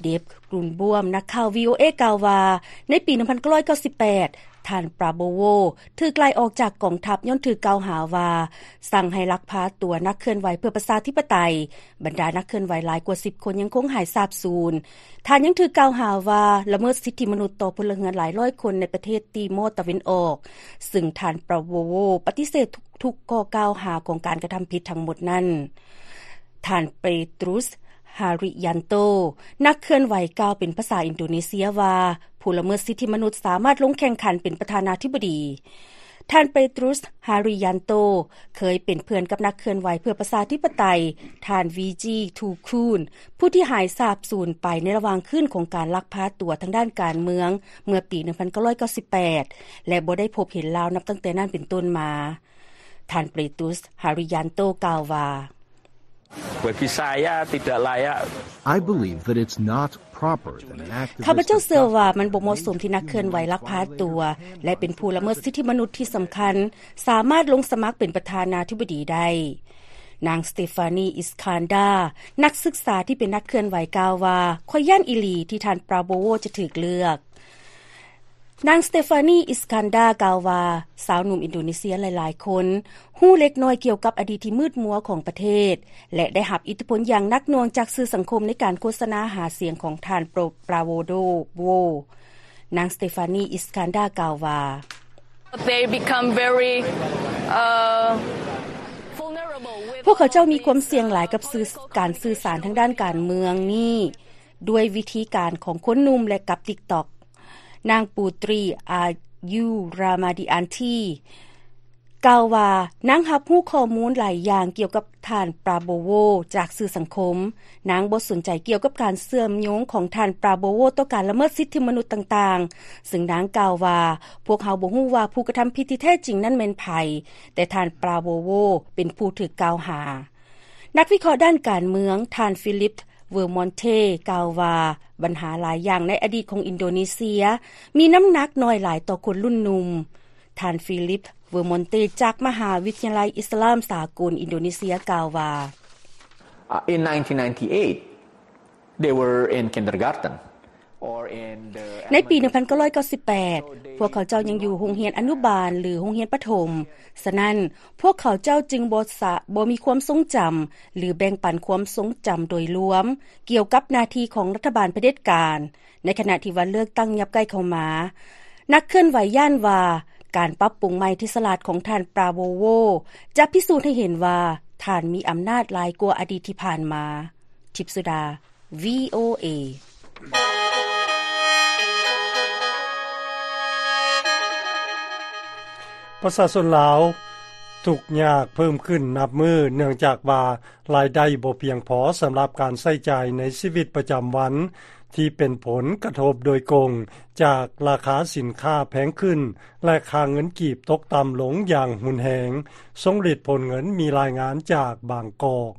ເດບ ກຣຸນບວມ ນັກຂ່າວ ວີໂອເອ ກ່າວວ່າ ໃນປີໜຶ່ງພັນເກົ້າຮ້ອຍເກົ້າສິບແປດ ທ່ານ ປຣາໂບໂວ ຖືກໄລ່ອອກຈາກກອງທັບຍ້ອນຖືກກ່າວຫາວ່າ ສັ່ງໃຫ້ລັກພາຕົວນັກເຄື່ອນໄຫວເພື່ອປະຊາທິປະໄຕ. ບັນດານັກເຄື່ອນໄຫວຫຼາຍກວ່າສິບຄົນຍັງຄົງຫາຍສາບສູນ. ທ່ານຍັງຖືກກ່າວຫາວ່າລະເມີດສິດທິມະນຸດຕໍ່ພົນລະເຮືອນຫຼາຍຮ້ອຍຄົນໃນປະເທດຕີມໍຕາເວັນອອກ, ຊຶ່ງທ່ານ ປຣາໂບໂວ ປະຕິເສດທຸກ ທຸກຂໍ້ກ່າວຫາຂອງການກະທຳຜິດທັງໝົດນັ້ນ. ທ່ານ ເປຕຣູສ ຮາຣິຍັນໂຕ ນັກເຄື່ອນໄຫວກ່າວເປັນພາສາອິນໂດເນເຊຍວ່າ ຜູ້ລະເມີດສິດທິມະນຸດສາມາດລົງແຂ່ງຂັນເປັນປະທານາທິບໍດີ. ທ່ານ ເປຕຣູສ ຮາຣິຍັນໂຕ ເຄີຍເປັນເພື່ອນກັບນັກເຄື່ອນໄຫວເພື່ອປະຊາທິປະໄຕ ທ່ານ ວີຈີ ທູຄູນ ຜູ້ທີ່ຫາຍສາບສູນໄປໃນລະຫວ່າງຄືນຂອງການລັກພາຕົວທາງດ້ານການເມືອງເມື່ອປີໜຶ່ງພັນເກົ້າຮ້ອຍເກົ້າສິບແປດ ແລະ ບໍ່ໄດ້ພົບເຫັນລາວນັບຕັ້ງແຕ່ນັ້ນເປັນຕົ້ນມາ. ທ່ານ ເປຕຣູສ ຮາຣິຍັນໂຕ ກ່າວວ່າ Bagi saya tidak layak. I believe that it's not proper that an activist ຂ້າພະເຈົ້າເຊື່ອວ່າມັນບໍ່ເໝາະສົມທີ່ນັກເຄື່ອນໄຫວລັກພາຕົວ ແລະ ເປັນຜູ້ລະເມີດສິດທິມະນຸດທີ່ສຳຄັນ ສາມາດລົງສະໝັກເປັນປະທານາທິບໍດີໄດ້. ນາງ ສະເຕຟານີ ອິສຄານດາ ນັກສຶກສາທີ່ເປັນນັກເຄື່ອນໄຫວກ່າວວ່າ ຂ້ອຍຢ້ານອີ່ຫຼີທີ່ທ່ານ ປຣາໂບໂວ ຈະຖືກເລືອກ. ນາງ ສະເຕຟານີ ອິສຄານດາ ກ່າວວ່າ ຊາວໜຸ່ມອິນໂດເນເຊຍຫຼາຍໆຄົນຮູ້ເລັກນ້ອຍກ່ຽວກັບອະດີດທີ່ມືດມົວຂອງປະເທດ ແລະ ໄດ້ຮັບອິດທິພົນຢ່າງໜັກໜ່ວງຈາກສື່ສັງຄົມໃນການໂຄສະນາຫາສຽງຂອງທ່ານ ປຣາໂບໂວ. ນາງ ສະເຕຟານີ ອິສຄານດາ ກ່າວວ່າ They become very, uh, vulnerable with ພວກເຂົາເຈົ້າມີຄວາມສ່ຽງຫຼາຍກັບສື່ ການສື່ສານທາງດ້ານການເມືອງນີ້ ດ້ວຍວິທີການຂອງຄົນໜຸ່ມ ແລະ ກັບ TikTok. ນາງ ປູຕຣີ ອາຍຸຣາມາດີອານທີ ກ່າວວ່າ ນາງຮັບຮູ້ຂໍ້ມູນຫຼາຍຢ່າງກ່ຽວກັບທ່ານ ປຣາໂບໂວ ຈາກສື່ສັງຄົມ. ນາງບໍ່ສົນໃຈກ່ຽວກັບການເຊື່ອມໂຍງຂອງທ່ານ ປຣາໂບໂວ ຕໍ່ການລະເມີດສິດທິມະນຸດຕ່າງໆ, ຊຶ່ງນາງກ່າວວ່າ ພວກເຮົາບໍ່ຮູ້ວ່າຜູ້ກະທຳຜິດທີ່ແທ້ຈິງນັ້ນແມ່ນໃຜ, ແຕ່ທ່ານ ປຣາໂບໂວ ເປັນຜູ້ຖືກກ່າວຫາ. ນັກວິເຄາະດ້ານການເມືອງ ທ່ານ ຟີລິບ ເວີມອນເທ ກ່າວວ່າ ບັນຫາຫຼາຍຢ່າງໃນອະດີດຂອງອິນໂດເນເຊຍ ມີນ້ຳໜັກໜ້ອຍຫຼາຍຕໍ່ຄົນລຸ້ນໜຸ່ມ. ທ່ານ ຟີລິບ ເວີມອນເຕ ຈາກມະຫາວິທະຍາໄລອິດສະລາມສາກົນອິນໂດເນເຊຍ ກ່າວວ່າ Uh, in nineteen ninety-eight, they were in kindergarten. ໃນປີໜຶ່ງພັນເກົ້າຮ້ອຍເກົ້າສິບແປດ ພວກເຂົາເຈົ້າຍັງຢູ່ໂຮງຮຽນອະນຸບານ ຫຼື ໂຮງຮຽນປະຖົມ. ສະນັ້ນ, ພວກເຂົາເຈົ້າຈຶ່ງບໍ່ສະ, ບໍ່ມີຄວາມຊົງຈຳ ຫຼື ແບ່ງປັນຄວາມຊົງຈຳໂດຍລວມກ່ຽວກັບໜ້າທີ່ຂອງລັດຖະບານຜະເດັດການ, ໃນຂະນະທີ່ວັນເລືອກຕັ້ງຍັບໃກ້ເຂົ້າມາ. ນັກເຄື່ອນໄຫວຢ້ານວ່າ ການປັບປຸງໃໝ່ທີ່ສະຫຼາດຂອງທ່ານ ປຣາໂບໂວ ຈະພິສູດໃຫ້ເຫັນວ່າ ທ່ານມີອຳນາດຫຼາຍກວ່າອະດີດທີ່ຜ່ານມາ. ທິບສຸດາ ວີໂອເອ. ປະຊາຊົນລາວ ທຸກຍາກເພີ່ມຂຶ້ນນັບມື້ ເນື່ອງຈາກວ່າລາຍໄດ້ບໍ່ພຽງພໍສຳລັບການໃຊ້ຈ່າຍໃນຊີວິດປະຈຳວັນ ທີ່ເປັນຜົນກະທົບໂດຍກົງຈາກລາຄາສິນຄ້າແພງຂຶ້ນ ແລະ ຄ່າເງິນກີບຕົກຕ່ຳລົງຢ່າງຮຸນແຮງ. ຊົງລິດ ໂພນເງິນ ມີລາຍງານຈາກບາງກອກ.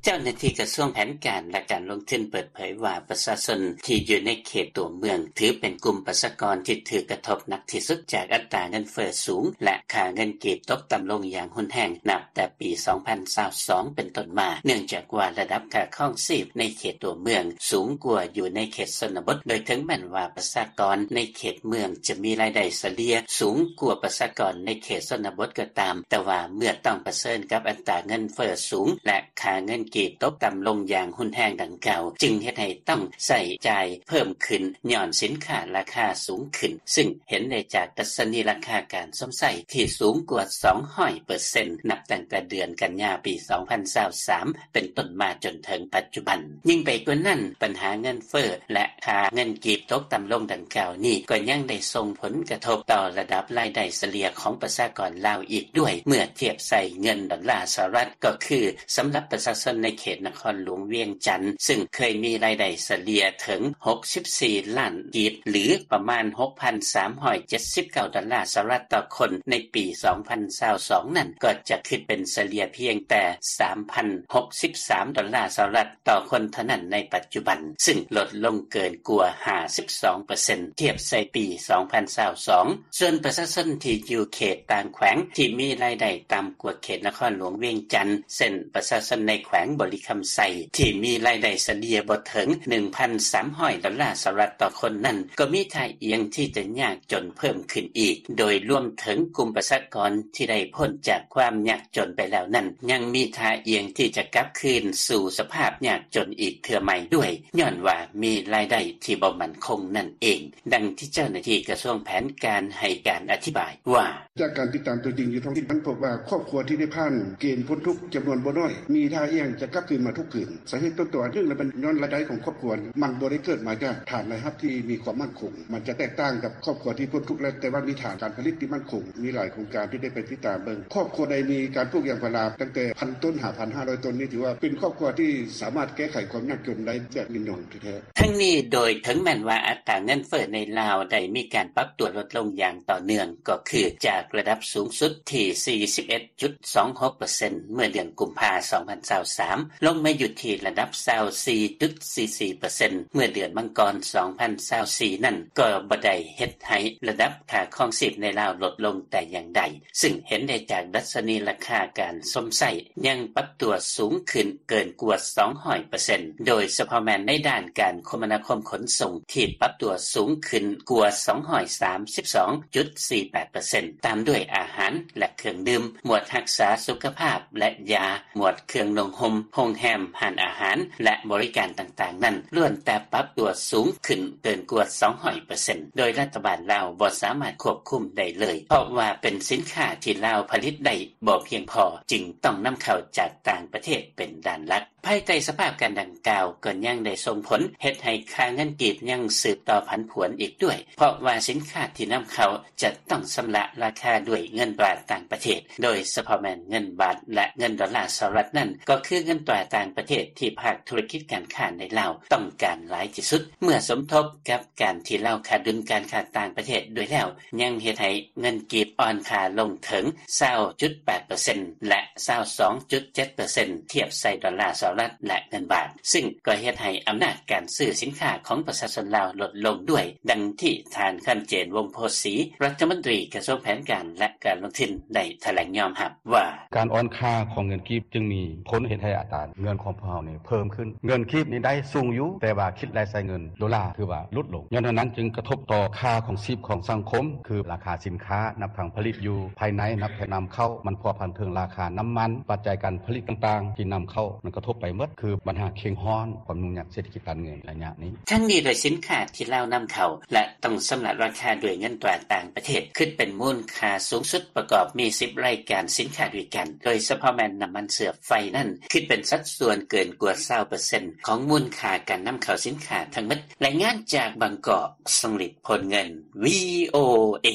ເຈົ້າໜ້າທີ່ກະຊວງແຜນການ ແລະ ການລົງທຶນເປີດເຜີຍວ່າ ປະຊາຊົນທີ່ຢູ່ໃນເຂດຕົວເມືອງ ຖືເປັນກຸ່ມປະຊາກອນທີ່ຖືກກະທົບໜັກທີ່ສຸດຈາກອັດຕາເງິນເຟີ້ສູງ ແລະ ຄ່າເງິນກີບຕົກຕ່ຳລົງຢ່າງຮຸນແຮງ ນັບແຕ່ປີສອງພັນຊາວສອງເປັນຕົ້ນມາ ເນື່ອງຈາກວ່າລະດັບຄ່າຄອງຊີບໃນເຂດຕົວເມືອງສູງກວ່າຢູ່ໃນເຂດຊົນນະບົດ ໂດຍເຖິງແມ່ນວ່າປະຊາກອນໃນເຂດເມືອງຈະມີລາຍໄດ້ສະເລ່ຍສູງກວ່າປະຊາກອນໃນເຂດຊົນນະບົດກໍຕາມ, ແຕ່ວ່າເມື່ອຕ້ອງປະເຊີນກັບອັດຕາເງິນເຟີ້ສູງ ແລະ ຄ່າເງິນກີບຕົກຕ່ຳລົງຢ່າງຮຸນແຮງດັ່ງກ່າວ ຈຶ່ງເຮັດໃຫ້ຕ້ອງໃຊ້ຈ່າຍເພີ່ມຂຶ້ນຍ້ອນສິນຄ້າລາຄາສູງຂຶ້ນ, ຊຶ່ງເຫັນໄດ້ຈາກດັດຊະນີລາຄາການຊົມໃຊ້ທີ່ສູງກວ່າສອງຮ້ອຍເປີເຊັນ ນັບຕັ້ງແຕ່ເດືອນກັນຍາປີສອງພັນຊາວສາມເປັນຕົ້ນມາຈົນເຖິງປັດຈຸບັນ. ຍິ່ງໄປກວ່ານັ້ນ, ບັນຫາເງິນເຟີ້ ແລະ ຄ່າເງິນກີບຕົກຕ່ຳລົງດັ່ງກ່າວນີ້ ກໍຍັງໄດ້ສົ່ງຜົນກະທົບຕໍ່ລະດັບລາຍໄດ້ສະເລ່ຍຂອງປະຊາກອນລາວອີກດ້ວຍ ເມື່ອທຽບໃສ່ເງິນດອນລາສະຫະລັດ ກໍຄື ສຳລັບປະຊາຊົນໃນເຂດນະຄອນຫຼວງວຽງຈັນ ຊຶ່ງເຄີຍມີລາຍໄດ້ສະເລ່ຍເຖິງຫົກສິບສີ່ລ້ານກີບ ຫຼື ປະມານຫົກພັນສາມຮ້ອຍເຈັດສິບເກົ້າດອນລາສະຫະລັດຕໍ່ຄົນ ໃນປີສອງພັນຊາວສອງນັ້ນ ກໍຈະຂຶ້ນເປັນສະເລ່ຍພຽງແຕ່ສາມພັນຫົກສິບສາມດອນລາສະຫະລັດຕໍ່ຄົນເທົ່ານັ້ນໃນປັດຈຸບັນ, ຊຶ່ງລົດລົງເກີນກວ່າຫ້າສິບສອງເປີເຊັນ ທຽບໃສ່ປີສອງພັນຊາວສອງ. ສ່ວນປະຊາຊົນທີ່ຢູ່ເຂດຕ່າງແຂວງທີ່ມີລາຍໄດ້ຕ່ຳກວ່າເຂດນະຄອນຫຼວງວຽງຈັນ ເຊັ່ນ ປະຊາຊົນໃນແຂວງບໍລິຄຳໄຊ ທີ່ມີລາຍໄດ້ສະເລ່ຍບໍ່ເຖິງໜຶ່ງພັນສາມຮ້ອຍດອນລາສະຫະລັດຕໍ່ຄົນນັ້ນ ກໍມີທ່າອ່ຽງທີ່ຈະຍາກຈົນເພີ່ມຂຶ້ນອີກ, ໂດຍລວມເຖິງກຸ່ມປະຊາກອນທີ່ໄດ້ພົ້ນຈາກຄວາມຍາກຈົນໄປແລ້ວນັ້ນ ຍັງມີທ່າອ່ຽງທີ່ຈະກັບຄືນສູ່ສະພາບຍາກຈົນອີກເທື່ອໃໝ່ດ້ວຍ, ຍ້ອນວ່າມີລາຍໄດ້ທີ່ບໍ່ໝັ້ນຄົງນັ້ນເອງ. ດັ່ງທີ່ເຈົ້າໜ້າທີ່ກະຊວງແຜນການໃຫ້ການອະທິບາຍວ່າ: ຈາກການຕິດຕາມຕົວຈິງຢູ່ທ້ອງຖິ່ນ ມັນພົບວ່າຄອບຄົວທີ່ໄດ້ຜ່ານເກນພົ້ນທຸກຈຳນວນບໍ່ໜ້ອຍ ມີທ່າອ່ຽງຈະກັບຄືນມາທຸກຄືນ. ສາເຫດຕົ້ນຕໍອັນໜຶ່ງລະແມ່ນຍ້ອນລາຍໄດ້ຂອງຄອບຄົວ ມັນບໍ່ໄດ້ເກີດມາຈາກຖານລາຍຮັບທີ່ມີຄວາມໝັ້ນຄົງ. ມັນຈະແຕກຕ່າງກັບຄອບຄົວທີ່ພົ້ນທຸກແລ້ວ ແຕ່ວ່າມີຖານການຜະລິດທີ່ໝັ້ນຄົງ. ມີຫຼາຍໂຄງການທີ່ໄດ້ໄປຕິດຕາມເບິ່ງ ຄອບຄົວໃດມີການປູກຢາງພາລາຕັ້ງແຕ່ພັນຕົ້ນຫາພັນຫ້າຮ້ອຍຕົ້ນນີ້ ຖືວ່າເປັນຄອບຄົວທີ່ສາມາດແກ້ໄຂຄວາມຍາກຈົນໄດ້ແບບຍືນຍົງແທ້ໆ. ທັງນີ້ໂດຍເຖິງແມ່ນວ່າອັດຕາເງິນເຟີ້ໃນລາວໄດ້ມີການປັບຕົວລົດລົງຢ່າງຕໍ່ເນື່ອງ ກໍຄືຈາກລະດັບສູງສຸດທີ່ສີ່ສິບເອັດຈຸດສອງຫົກເປີເຊັນ ເມື່ອເດືອນກຸມພາ ສອງພັນຊາວສາມ ລົງມາຢູ່ທີ່ລະດັບຊາວສີ່ຈຸດສີ່ສີ່ເປີເຊັນ ເມື່ອເດືອນມັງກອນ ສອງພັນຊາວສີ່ນັ້ນ ກໍບໍ່ໄດ້ເຮັດໃຫ້ລະດັບຄ່າຄອງຊີບໃນລາວລົດລົງແຕ່ຢ່າງໃດ. ຊຶ່ງເຫັນໄດ້ຈາກດັດຊະນີລາຄາການຊົມໃຊ້ຍັງປັບຕົວສູງຂຶ້ນເກີນກວ່າສອງຮ້ອຍເປີເຊັນ ໂດຍສະເພາະແມ່ນໃນດ້ານການຄົມມະນາຄົມຂົນສົ່ງທີ່ປັບຕົວສູງຂຶ້ນກວ່າສອງຮ້ອຍສາມສິບສອງຈຸດສີ່ແປດເປີເຊັນ ຕາມດ້ວຍອາຫານ ແລະ ເຄື່ອງດື່ມ, ໝວດຮັກສາສຸຂະພາບ ແລະ ຢາ, ໝວດເຄື່ອງນຸ່ງຫົ່ມ, ໂຮງແຮມ, ຮ້ານອາຫານ ແລະ ບໍລິການຕ່າງໆນັ້ນ ລ້ວນແຕ່ປັບຕົວສູງຂຶ້ນເກີນກວ່າສອງຮ້ອຍເປີເຊັນ ໂດຍລັດຖະບານລາວບໍ່ສາມາດຄວບຄຸມໄດ້ເລີຍ ເພາະວ່າເປັນສິນຄ້າທີ່ລາວຜະລິດໄດ້ບໍ່ພຽງພໍ ຈຶ່ງຕ້ອງນຳເຂົ້າຈາກຕ່າງປະເທດເປັນດ້ານຫຼັກ. ພາຍໃຕ້ສະພາບການດັ່ງກ່າວ ກໍຍັງໄດ້ສົ່ງຜົນເຮັດໃຫ້ຄ່າເງິນກີບຍັງສືບຕໍ່ຜັນຜວນອີກດ້ວຍ ເພາະວ່າສິນຄ້າທີ່ນຳເຂົ້າຈະຕ້ອງຊຳລະລາຄາດ້ວຍເງິນຕາຕ່າງປະເທດ ໂດຍສະເພາະແມ່ນເງິນບາດ ແລະ ເງິນດອນລາສະຫະລັດນັ້ນ ກໍຄືເງິນຕາຕ່າງປະເທດທີ່ພາກທຸລະກິດການຄ້າໃນລາວຕ້ອງການຫຼາຍທີ່ສຸດ ເມື່ອສົມທົບກັບການທີ່ລາວຂາດດຸນການຄ້າຕ່າງປະເທດດ້ວຍແລ້ວ ຍັງເຮັດໃຫ້ເງິນກີບອ່ອນຄ່າລົງເຖິງຊາວຈຸດແປດເປີເຊັນ ແລະ ຊາວສອງຈຸດເຈັດເປີເຊັນ ທຽບໃສ່ດອນລາສະຫະລັດ ແລະ ເງິນບາດ ຊຶ່ງກໍເຮັດໃຫ້ອຳນາດການຊື້ສິນຄ້າຂອງປະຊາຊົນລາວລົດລົງດ້ວຍ, ດັ່ງທີ່ທ່ານ ຄຳເຈນ ວົງໂພສີ ລັດຖະມົນຕີກະຊວງແຜນການ ແລະ ການລົງທຶນ ໄດ້ຖະແຫຼງຍອມຮັບວ່າ: ການອ່ອນຄ່າຂອງເງິນກີບຈຶ່ງມີຜົນເຮັດໃຫ້ອັດຕາເງິນຂອງພວກເຮົານີ້ເພີ່ມຂຶ້ນ. ເງິນກີບນີ້ໄດ້ສູງຢູ່, ແຕ່ວ່າຄິດແລະໃຊ້ເງິນໂດລາຖືວ່າຫຼຸດລົງ. ຍ້ອນເທົ່ານັ້ນຈຶ່ງກະທົບຕໍ່ຄ່າຄອງຊີບຂອງສັງຄົມ, ຄືລາຄາສິນຄ້າ ນັບທັງຜະລິດຢູ່ພາຍໃນ ນັບທັງນຳເຂົ້າ, ມັນພົວພັນເຖິງລາຄານ້ຳມັນ, ປັດໄຈການຜະລິດຕ່າງໆທີ່ນຳເຂົ້າ ມັນກະທົບໄປໝົດ, ຄືບັນຫາເຄັ່ງຮ້ອນ, ຄວາມຫຍຸ້ງຍາກເສດຖະກິດການເງິນໄລຍະນີ້. ທັງນີ້ໂດຍສິນຄ້າທີ່ລາວນຳເຂົ້າ ແລະ ຕ້ອງຊຳລະລາຄາດ້ວຍເງິນຕາຕ່າງປະເທດ ຄິດເປັນມູນຄ່າສູງສຸດປະກອບມີສິບລາຍການສິນຄ້າດ້ວຍກັນ, ໂດຍສະເພາະແມ່ນນ້ຳມັນເຊື້ອໄຟນັ້ນ ຄິດເປັນສັດສ່ວນເກີນກວ່າຊາວເປີເຊັນຂອງມູນຄ່າການນຳເຂົ້າສິນຄ້າທັງໝົດ. ລາຍງານຈາກບາງກອກ, ຊົງລິດ ໂພນເງິນ, ວີໂອເອ.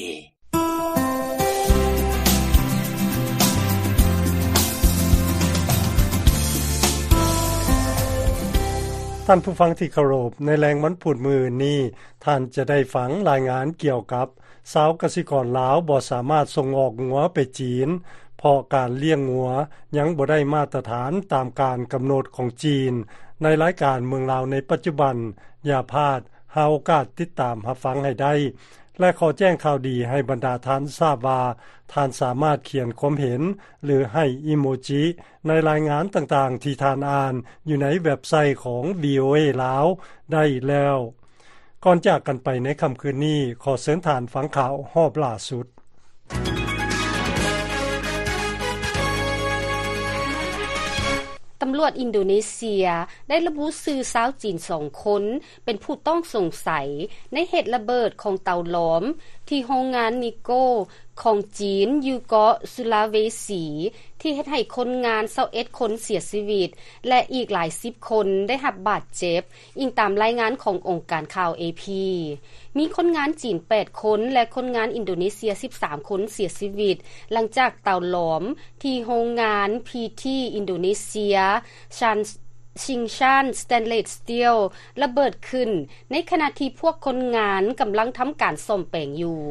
ທ່านผู้ฟังที่เคารพ ในแลงวันพุธมื้อนี้ ท่านจะได้ฟังรายงานเกี่ยวกับ ชาวกสิกรลาวบ่สามารถส่งออกงัวไปจีน เพราะการเลี้ยงงัวยังบ่ได้มาตรฐานตามการกำหนดของจีน ในรายการเมืองลาวในปัจจุบัน อย่าพลาด หาโอกาสติดตามรับฟังให้ได้ และขอแจ้งข่าวดีให้บรรดาท่านทราบว่า ท่านสามารถเขียนความเห็น หรือให้อีโมจิ ในรายงานต่างๆ ที่ท่านอ่านอยู่ในเว็บไซต์ของ วีโอเอ ลาวได้แล้ว ก่อนจากกันไปในค่ำคืนนี้ ขอเชิญท่านฟังข่าวรอบล่าสุด ตำรวจอินโดเนเซียได้ระบุชื่อชาวจีนสองคน เป็นผู้ต้องสงสัยในเหตุระเบิดของเตาหลอมที่โรงงานนิกเกิลของจีนอยู่เกาะสุลาเวสี ที่เฮ็ดให้คนงานซาวเอ็ดคนเสียชีวิต และอีกหลายสิบคนได้รับบาดเจ็บ อิงตามรายงานขององค์การข่าว เอพี มีคนงานจีนแปดคน และคนงานอินโดเนเซียสิบสามคนเสียชีวิต หลังจากเตาหลอมที่โรงงานพีทีอินโดเนเซีย ชาน Tsingshan Stainless Steel ระเบิดขึ้น ในขณะที่พวกคนงานกำลังทำการซ่อมแปลงอยู่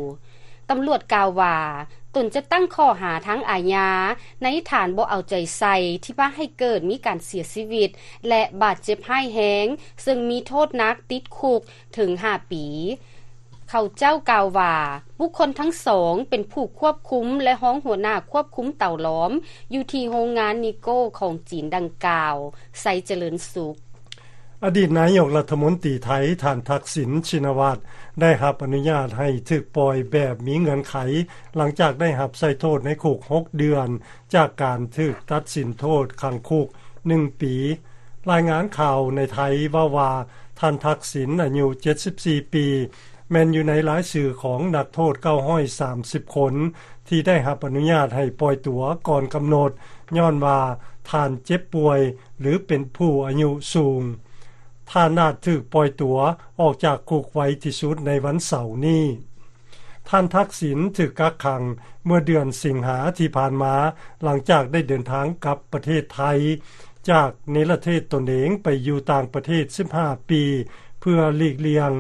ตำรวจกล่าวว่า ตนจะตั้งข้อหาทางอาญา ในฐานบ่เอาใจใส่ที่พาให้เกิดมีการเสียชีวิต และบาดเจ็บร้ายแรง ซึ่งมีโทษหนักติดคุกถึงห้าปี เขาเจ้ากล่าวว่า บุคคลทั้งสองเป็นผู้ควบคุมและรองหัวหน้าควบคุมเตาหลอม อยู่ที่โรงงานนิกเกิลของจีนดังกล่าว ไซเจริญสุข อดีตนายกรัฐมนตรีไทย ท่านทักษิณ ชินวัตร ได้รับอนุญาตให้ถูกปล่อยแบบมีเงื่อนไข หลังจากได้รับใช้โทษในคุกหกเดือน จากการถูกตัดสินโทษขังคุกหนึ่งปี รายงานข่าวในไทยเว้าว่า ท่านทักษิณ อายุเจ็ดสิบสี่ปี แม่นอยู่ในรายชื่อของนักโทษเก้าร้อยสามสิบคน ที่ได้รับอนุญาตให้ปล่อยตั๋วก่อนกำหนด ย้อนว่าท่านเจ็บป่วย หรือเป็นผู้อายุสูง ท่านอาจถูกปล่อยตั๋วออกจากคุกไวที่สุดในวันเสาร์นี้ ท่านทักษิณถูกกักขังเมื่อเดือนสิงหาที่ผ่านมา หลังจากได้เดินทางกลับประเทศไทย จากเนรเทศตนเองไปอยู่ต่างประเทศสิบห้าปี เพื่อหลีกเลี่ยง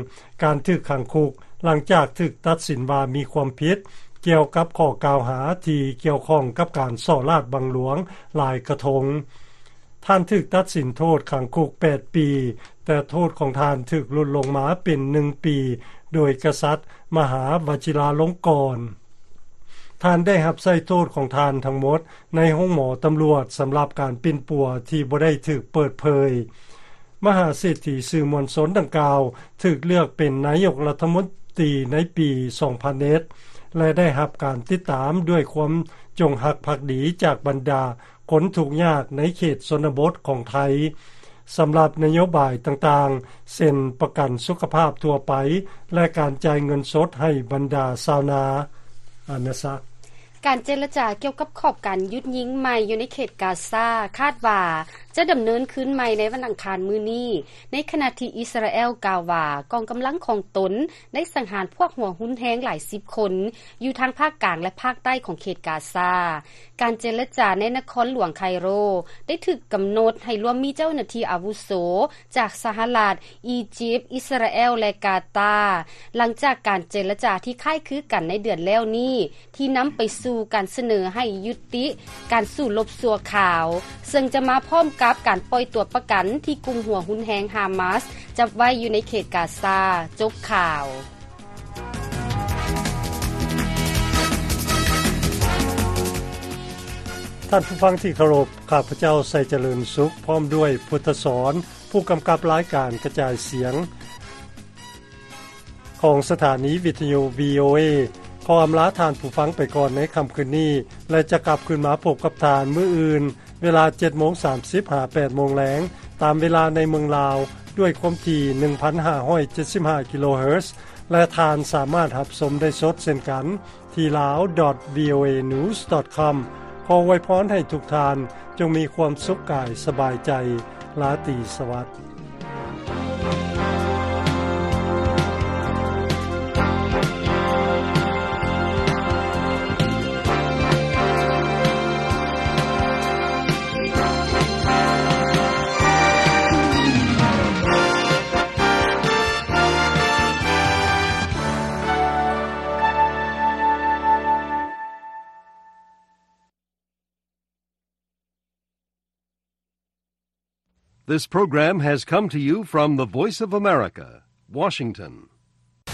การถูกขังคุก หลังจากถูกตัดสินว่ามีความผิดเกี่ยวกับข้อกล่าวหาที่เกี่ยวข้องกับการส่อราชบังหลวงหลายกระทง ท่านถูกตัดสินโทษขังคุกแปดปี แต่โทษของท่านถูกลดลงมาเป็นหนึ่งปี โดยกษัตริย์มหาวชิราลงกรณ์ ท่านได้รับใช้โทษของท่านทั้งหมดในโรงหมอตำรวจสำหรับการปิ้นปัวที่บ่ได้ถูกเปิดเผย มหาเศรษฐีสื่อมวลชนดังกล่าวถูกเลือกเป็นนายกรัฐมนตรีในปีสองพันเอ็ด และได้รับการติดตามด้วยความจงรักภักดีจากบรรดาคนทุกข์ยากในเขตชนบทของไทย สำหรับนโยบายต่างๆ เช่นประกันสุขภาพทั่วไป และการจ่ายเงินสดให้บรรดาชาวนา อานาซะ การเจรจาเกี่ยวกับขอบการหยุดยิงใหม่อยู่ในเขตกาซา คาดว่าจะดำเนินขึ้นใหม่ในวันอังคารมื้อนี้ ในขณะที่อิสราเอลกล่าวว่ากองกำลังของตนได้สังหารพวกหัวรุนแรงหลายสิบคน อยู่ทางภาคกลางและภาคใต้ของเขตกาซา การเจรจาในนครหลวงไคโรได้ถูกกำหนดให้รวมมีเจ้าหน้าที่อาวุโสจากสหรัฐ อียิปต์ อิสราเอล และกาตาร์ หลังจากการเจรจาที่คล้ายคลึงกันในเดือนแล้วนี้ ที่นำไปสู่การเสนอให้ยุติการสู้รบชั่วคราว ซึ่งจะมาพร้อมกับการปล่อยตัวประกันที่กลุ่มหัวรุนแรงฮามาสจับไว้อยู่ในเขตกาซา จบข่าว ท่านผู้ฟังที่เคารพ ข้าพเจ้า ไซเจริญสุข พร้อมด้วย พุทธสอน ผู้กำกับรายการกระจายเสียง ของสถานีวิทยุ วีโอเอ ขออำลาท่านผู้ฟังไปก่อนในค่ำคืนนี้ และจะกลับคืนมาพบกับท่านมื้ออื่น เวลาเจ็ดโมงสามสิบ หา แปดโมงแลง ตามเวลาในเมืองลาว ด้วยความถี่ หนึ่งพันห้าร้อยเจ็ดสิบห้า กิโลเฮิรตซ์ และท่านสามารถรับชมได้สดเช่นกัน ที่ ลาว ดอท วีโอเอ นิวส์ ดอท คอม ขออวยพรให้ทุกท่านจงมีความสุขกายสบายใจ ราตรีสวัสดิ์ This program has come to you from the Voice of America, Washington.